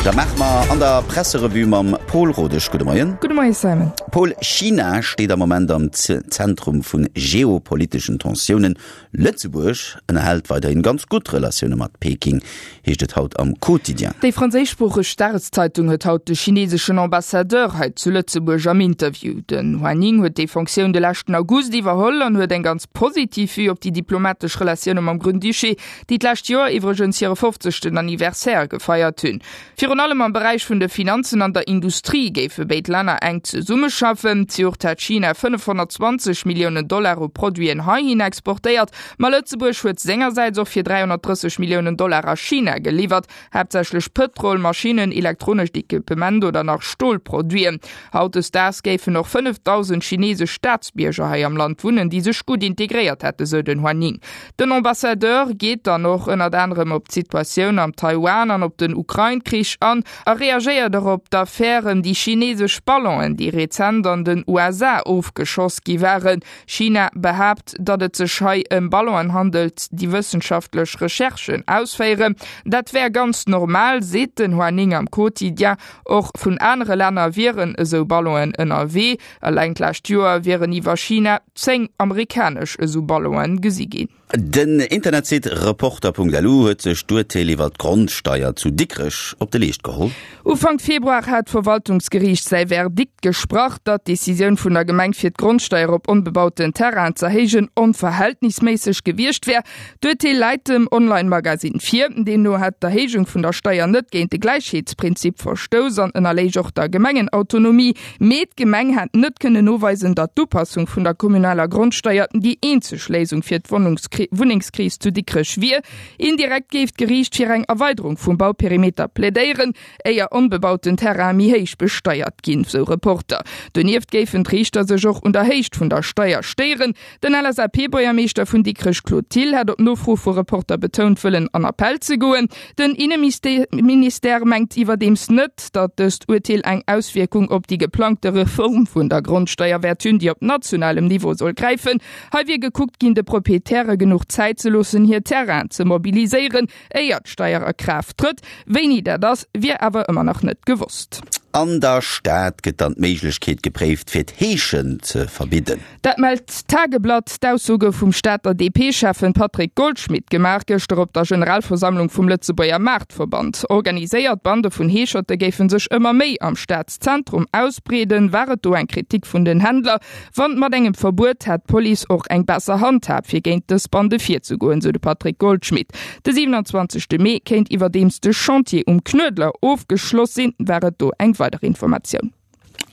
Dat maache mer an der Presserevue mam Pol Rodesch. Gudde Moien. Gudde Moie Simon. Pol, China steet am Moment am Zentrum vu geopoliteschen Tensiounen. Lëtzebuerg ënnerhält weiderhin ganz gutt Relatioune mat Peking, heescht et haut am Quotidien. Déi franséischsproocheg Dageszeitung huet haut de chineseschen Ambassadeur hei zu Lëtzebuerg am Interview. Den Hua Ning huet déi Fonctioun de leschten August iwwerholl an huet eng ganz positiv Vue op déi diplomatesch Relatioune mam Grand-Duché, déi d'lescht Joer iwwregens hire fofzegsten Anniversaire gefeiert hunn. Virun allem am Beräich vun de Finanzen an der Industrie géife béid Länner enk zesummeschaffen. Zejoert hat China 520 Milliounen Dollar u Produiten heihin exportéiert, ma Lëtzebuerg huet sengersäits och fir 330 Milliounen Dollar a China geliwwert, haaptsächlech Pëtrol, Maschinnen, elektronescht Equipement oder nach Stolproduiten. Hautdesdaags géifen och 5.000 chinesesch Staatsbierger hei am Land wunnen, déi sech gutt integréiert hätten, sou den Hua Ning. Den Ambassadeur geet dann och ënnert anerem op d'Situatioun am Taiwan an op den Ukrain-Krich an a reagéiert och op d'Affär ëm déi chinesesch Ballonen, déi rezent an den USA ofgeschoss gi waren. China behaapt, datt et sech hei ëm Ballonen handelt, déi wëssenschaftlech Recherchen ausféieren. Dat wär ganz normal, seet den Hua Ning am Quotidien. Och vun anere Länner wieren esou Ballonen ënnerwee. Eleng d'lescht Joer wieren iwwer China 10 amerikanesch esou Ballonen gesi ginn. Den Internetsite Reporter.lu huet sech d'Urteel iwwer d'Grondsteier zu Dikrech op de Leescht geholl. Ufank Februar hat d'Verwaltungsgeriicht säi Verdikt gesprach, datt d'Decisioun vun der Gemeng fir d'Grondsteier op onbebauten Terrainen z'erhéijen onverhältnisméisseg gewiescht wär. D'Urteel läit dem Online-Magasinn vir. Deemno hätt d'Erhéijung vun der Steier net géint de Gläichheetsprinzip verstouss an ënnerléich och der Gemengenautonomie. Mee d'Gemeng hätt net kënnen noweisen, datt d'Upassung vun der kommunaler Grondsteier déi eenzeg Léisung fir d'Wunnengskris zu Dikrech wier. Indirekt géif d'Geriicht fir eng Erweiderung vum Bauperimeter plädéieren, éier onbebauten Terraine méi héich besteiert ginn, sou Reporter. Donieft géifen d'Riichter sech och un der Héicht vun der Steier stéieren. Den LSAP-Buergermeeschter vun Dikrech Claude Thill hat op Nofro vu Reporter betount, wëllen an Appell ze goen. Den Inneministère mengt iwwerdeems net, datt dëst Urteel eng Auswierkung op déi geplangte Reform vun der Grondsteier wäert hunn, déi op nationalem Niveau soll gräifen. Hei wier gekuckt ginn, de Proprietäre genuch Zäit ze loossen, hir Terrainen ze mobiliséieren, éier d'Steier a Kraaft trëtt. Wéini dat ass, wier awer ëmmer nach net gewosst. An der Stad gëtt dann d'Méiglechkeet gepréift, fir d'Heeschen ze verbidden. Dat mellt d'Tageblatt. D'Ausso gouf vum Stater DP-Schäffen Patrick Goldschmidt gemaach, gëschter op der Generalversammlung vum Lëtzebuerger Maartverband. Organiséiert Bande vun Heescherte géife sech ëmmer méi am Stadszentrum ausbreeden, war et do eng Kritik vun den Händler. Wann mat engem Verbuet hätt d'Police och eng besser Handhab fir géint dës Bande virzegoen, sou de Patrick Goldschmidt. De 27 Mee kéint iwwerdeems de Chantier um Knuedler ofgeschloss sinn, war et do eng weider Informatioun.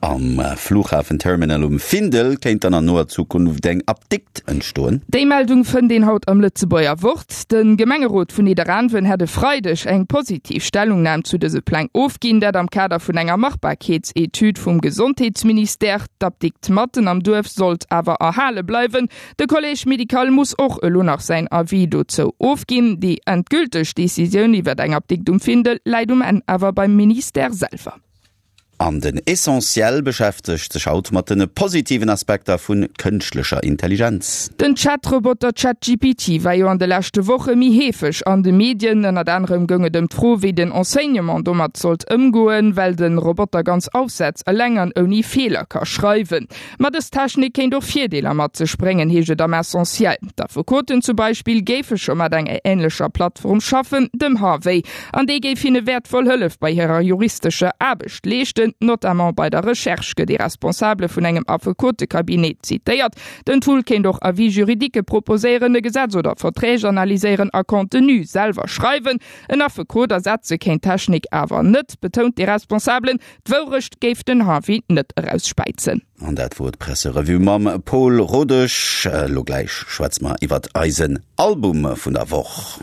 Am Fluchhafenterminal um Findel kéint dann an noer Zukunft eng Apdikt entstoen. Déi Meldung fënnt een haut am Lëtzebuerger Wort. De Gemengerot vun Nidderaanwen hätt e Freideg eng positiv Stellungnam zu dëse Pläng ofginn, dat am Kader vun enger Machbarkeetsetüd vum Gesondheetsministère. D'Apdikt matten am Duerf sollt awer erhale bleiwen. De Collège médical muss och elo nach säin Avis dozou ofginn. Déi endgülteg Decisioun iwwer eng Apdikt um Findel läit um Enn awer beim Ministère selwer. An den Essentiel beschäftegt sech haut mat de positiven Aspekter vu kënschtlecher Intelligenz. Den Chat-Roboter ChatGPT war jo an de leschte Woche méi heefeg an de Medien. Ënnert anerem goung et ëm d'Fro, wéi den Enseignement domat sollt ëmgoen, well de Roboter ganz Aufsätz eleng an ouni Feeler ka schreiwen. Ma dës Technik kéint och Virdeeler mat sech bréngen, heescht et am Essentiel. D'Affekoten zum Beispill géife scho mat enger änlecher Plattform schaffen, dem Harvey, an déi géif hinne wäertvoll Hëllef bei hirer juristescher Aarbecht leeschten, notamment bei der Recherche, gëtt ee Responsabele vun engem Affekotecabinet zitéiert. Den Tool kéint och Avis juridiquë proposéieren, e Gesetz oder Verträg analyséieren a Contenu selwer schreiwen. En Affekot ersetze kéint d'Technik awer net, betount dee Responsabelen. D'Wourecht géif den Harvey net erausspäizen. An dat wor d'Presserevue mam Pol Rodesch. Elo gläich schwätze mer iwwert eisen Album vun der Woch.